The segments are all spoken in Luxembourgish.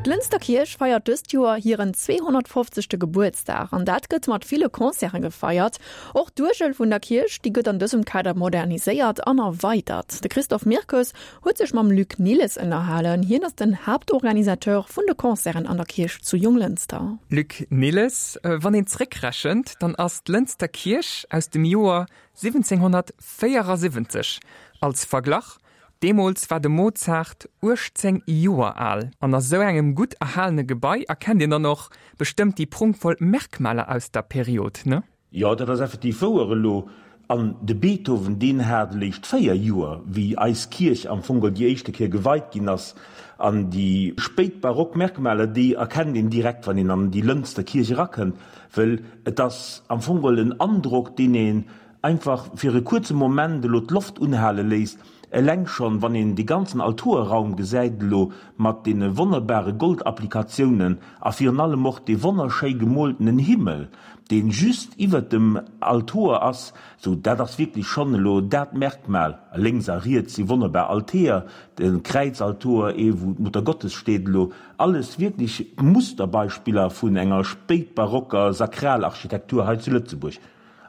D'Lënster Kierch feiert dëst Joer hiren 250. Gebuertsdag an dat gëtt mat ville Concerte gefeiert. Och d'Uergel vun der Kierch, déi gëtt an dësem Kader moderniséiert an erweidert. De Christophe Mirkes huet sech mam Luc Nilles ënnerhalen. Hien ass den Haaptorganisateur vun de Concerten an der Kierch zu Jonglënster. Luc Nilles, Wann een zréckrechent, dann ass d'Lënster Kierch aus dem Joer 1774. Als Verglach, Deemools war de Mozart 18 Joer al. An a sou engem gutt erhalene Gebai erkennt een dann och bestëmmt déi prunkvoll Merkmaler aus der Period, ne? Jo, dat ass effektiv wouer elo. An de Beethoven, deen hat eléischt 4 Joer, wéi eis Kierch am Fong geholl déi éischte Kéier geweit ginn ass. An déi spéit barock Merkmaler, déi erkennt een direkt, wann een an déi Lënster Kierch erakënnt, wëll et ass am Fong geholl en Androck, deen een Einfach fir e kuerze Moment elo d'Loft unhale léisst, eleng schonn wann een dee ganzen Altoerraum gesäit elo mat deene wonnerbare Goldapplikatiounen a virun allem och dee wonnerschéi gemooltenen Himmel, dee just iwwert dem Altoer ass, sou dat ass wierklech schonn elo dat Merkmal. A lénks a riets si wonnerbar Alteer, de Kräizaltoer, ee wou d'Muttergottes steet elo, alles wierklech Musterbeispiller vun enger spéitbarocker Sakralarchitektur hei zu Lëtzebuerg.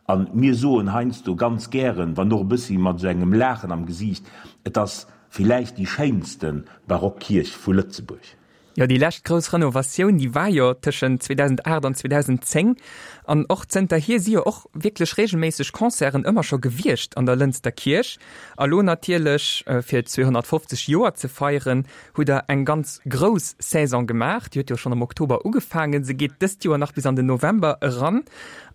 A mir soen heiansdo ganz gären, wann och e bëssi mat esou engem Laachen am Gesiicht, et ass villäicht déi schéinste barock Kierch vu Lëtzebuerg. Jo, déi lescht grouss Renovatioun, déi war jo tëschent 2008 an 2010. An och zënterhier si jo och wierklech reegelméisseg Concerten ëmmer scho gewiescht an der Lënster Kierch. A lo natierlech, fir 250 Joer ze feieren, hutt Der eng ganz grouss Saison gemaach. Déi huet jo schonn am Oktober ugefaangen. Se geet dëst Joer nach bis an den November eran.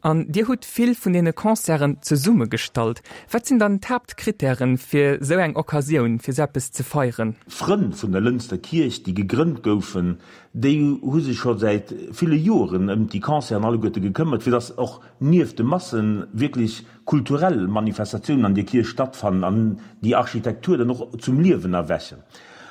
An Dir hutt vill vun deene Concerten zesummegestallt. Wat sinn dann d'Haaptkrittären, fir esou eng Occasioun, fir esou eppes ze feieren? D'Frënn vun der Lënster Kierch, déi gegrënnt goufen, déi hu sech scho säit ville Joren ëm déi Concerten alleguerte gekëmmert, fir dass och nieft de Massen wierklech kulturell Manifestatiounen an deer Kierch stattfannen an déi Architektur dann och zum Liewen erwächen.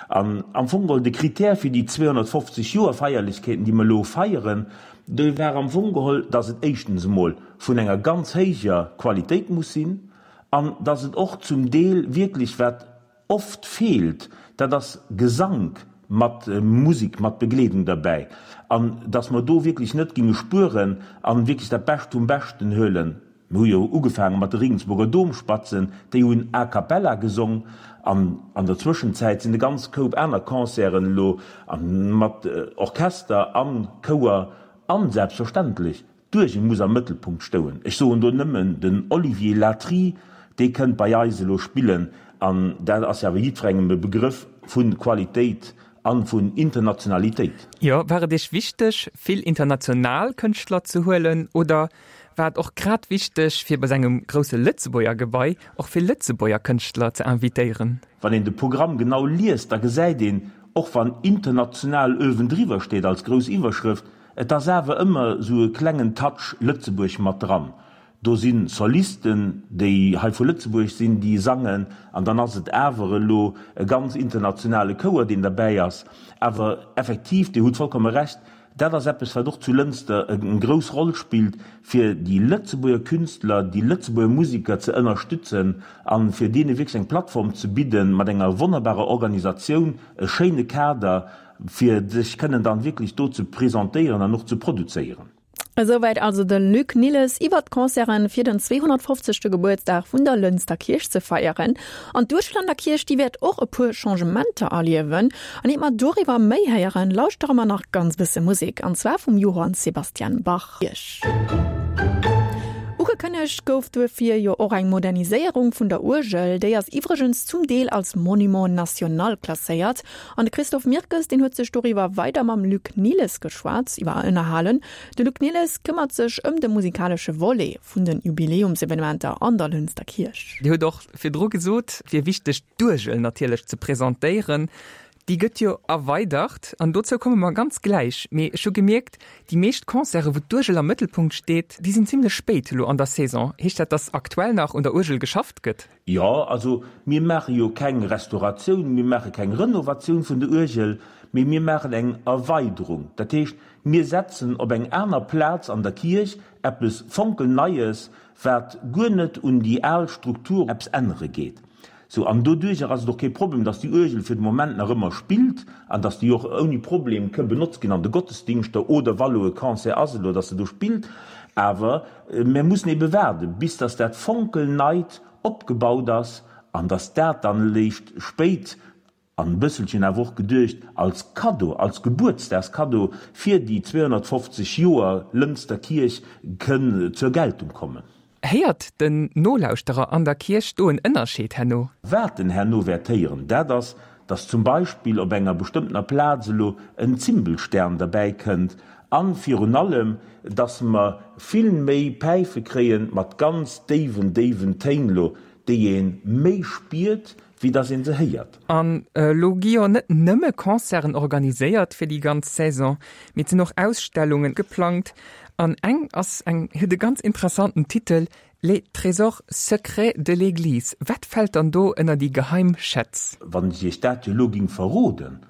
An am Fong geholl de Critère fir déi 250 Joer Feierlechkeeten, déi mer elo feieren, dee war am Fong geholl, dass et éischtens emol vun enger ganz héijer Qualitéit muss sinn an dass et och zum Deel wierklech, wat oft feelt, dat ass Gesank mat Musik, mat Begleedung derbäi, an dass mer do wierklech net ginge spueren an wierklech dat Bescht vum Beschten huelen. Mir hu jo ugefaange mat de Regensburger Domspatzen, déi hunn a cappella gesong an an der Zwëschenzäit sinn e ganz Koup aner Concerten elo mat Orchester a Chouer an selbstverständlech d'Uergel muss am Mëttelpunkt stouen. Ech soen do nëmmen den Olivier Latry, dee kënnt bei eis elo spillen an dat ass jo awer jiddwerengem e Begrëff vu Qualitéit a vun Internationalitéit. Jo, war et Iech wichteg, vill international Kënschtler ze huelen oder war et och grad wichteg, fir bei sengem grousse Lëtzebuerger Gebai och vill Lëtzebuerger Kënschtler ze invitéieren? Wann een de Programm genau liest, da gesäit een, och wann international uewendriwwer steet als grouss Iwwerschrëft, et ass awer ëmmer esou e klengen Touch Lëtzebuerg mat dran. Do si Solisten, déi hei vu Lëtzebuerg sinn, déi sangen, an dann ass et awer elo e ganz internationale Chouer, deen derbäi ass. Awer effektiv, Dir hutt vollkomme Recht, dat ass eppes, wat och zu Lënster eng grouss Roll spillt, fir déi Lëtzebuerger Künstler, déi Lëtzebuerger Musiker ze ënnerstützen a fir deene wierklech eng Plattform ze bidden, mat enger wonnerbarer Organisatioun, e schéine Kader, fir sech kënnen dann wierklech do ze presentéieren an och ze produzéieren. Esouwäit also de Luc Nilles iwwert d'Concerten fir den 250. Gebuertsdag vun der Lënster Kierch ze feieren. An d'Uerschlander Kierch, déi wäert och e puer Changementer erliewen. An iert mer doriwwer méi héieren, lauschtere mer nach ganz bësse Musek, an zwar vum Johann Sebastian Bach. Ugekënnegt gouf duerfir jo och eng Moderniséierung vun der Uergel. Déi ass iwwregens zum Deel als Monument national klasséiert. An de Christophe Mirkes, deen huet sech doriwwer weider mam Luc Nilles geschwat, iwwer ënnerhalen. De Luc Nilles këmmert sech ëm de musikalesche Volet vun de Jubiläumsevenementer an der Lënster Kierch. Dir hutt och virdru gesot, et wier wichteg d'Uergel natierlech ze presentéieren. Déi gëtt jo erweidert an dozou komme mer ganz gläich. Mee ech hu gemierkt, déi meescht Concerten, wou d'Uergel am Mëttelpunkt steet, déi sinn zimmlech spéit elo an der Saison. Heescht dat, datt aktuell nach un der Uergel geschafft gëtt? Jo, also mir maache jo keng Restauratioun, mir maache keng Renovatioun vun der Uergel, mee mir maachen eng Erweiderung. Dat heescht, mir setzen op eng aner Plaz an der Kierch eppes fonkelneies, wat guer net un déi al Struktur eppes ännere geet. Sou, an doduercher ass et och kee Problem, dass déi Uergel fir de Moment nach ëmmer spillt an dass déi och ouni Problem ke benotzt ginn an de Gottesdingschter oder wa lo e Concert ass elo, dass se do spillt. Awer mär mussen ebe waarden, bis dass dat fonkelneit opgebaut ass an dass dat dann léischt spéit, an e bësselchen awer och geduecht als Kaddo, als Gebuertsdagskaddo fir déi 250 Joer Lënster Kierch kënn zur Geltung kommen. Héiert den Nolauschterer an der Kierch do en Ënnerscheed herno? Wat en herno wäert héieren, dat ass, dass zum Beispill op enger bestëmmtener Plaz elo en Zimbelstern derbäi kënnt an virun allem, dass mer vill méi Päife kréien mat ganz déiwen, déiwen Téin elo, déi ee méi spiert, wéi dass een se héiert. An elo gi jo net nëmme Concerten organiséiert fir déi ganz Saison, mee et sinn och Ausstellungen geplangt. An eng ass eng, huet e ganz interessanten Titel, Les trésors secrets de l'église. Wat fält dann do ënner déi geheim Schätz? Wann ech Iech dat jo elo ging verroden,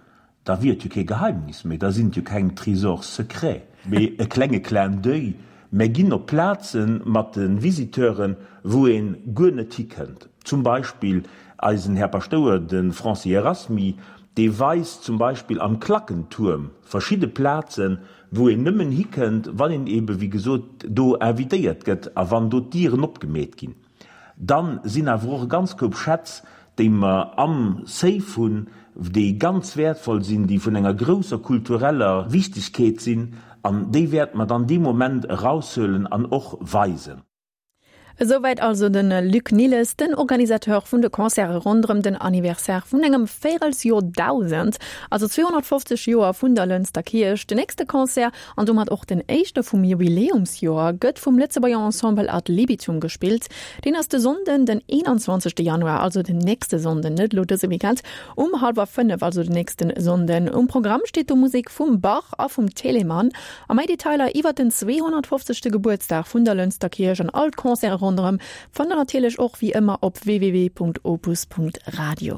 Da wier et jo kee Geheimnis méi, da sinn et jo keng Trésors secrets, mee e klenge Clin d'oeil. Mär ginn op Plaze mat de Visiteuren, wou ee guer net hikënnt. Zum Beispill eisen Här Paschtouer, de Francis Erasmy, dee weist zum Beispill am Klackentuerm verschidde Plazen, wou een nëmmen hikënnt, wann een eebe wéi gesot do invitéiert gëtt a wann do d'Dieren opgemeet ginn. Dann sinn awer och e ganz Koup Schätz, déi mer am Safe hunn, déi ganz wäertvoll sinn, déi vun enger grousser kultureller Wichtigkeet sinn, an déi wäerte mer dann dee Moment eraushuelen an och weisen. Esouwäit also de Luc Nilles, den Organisateur vun de Concerte ronderëm den Anniversaire vun engem Véirelsjordausend, also 250 Joer vun der Lënster Kierch. Den nächste Concert An domat och den éischte vum Jubiläumsjoer gëtt vum Lëtzebuerger Ensemble Ad Libitum gespillt. Deen ass de Sonnden, den 21. Januar, also den nächste Sonnden, net elo dëse Weekend, um hallwer 5, also den nächsten Sonnden. Um Programm steet do Musek vum Bach a vum Telemann. A méi Detailer iwwert den 250. Gebuertsdag vun der Lënster Kierch an all d'Concerte ronderëm fannt der natierlech och wéi ëmmer op www.opus.radio.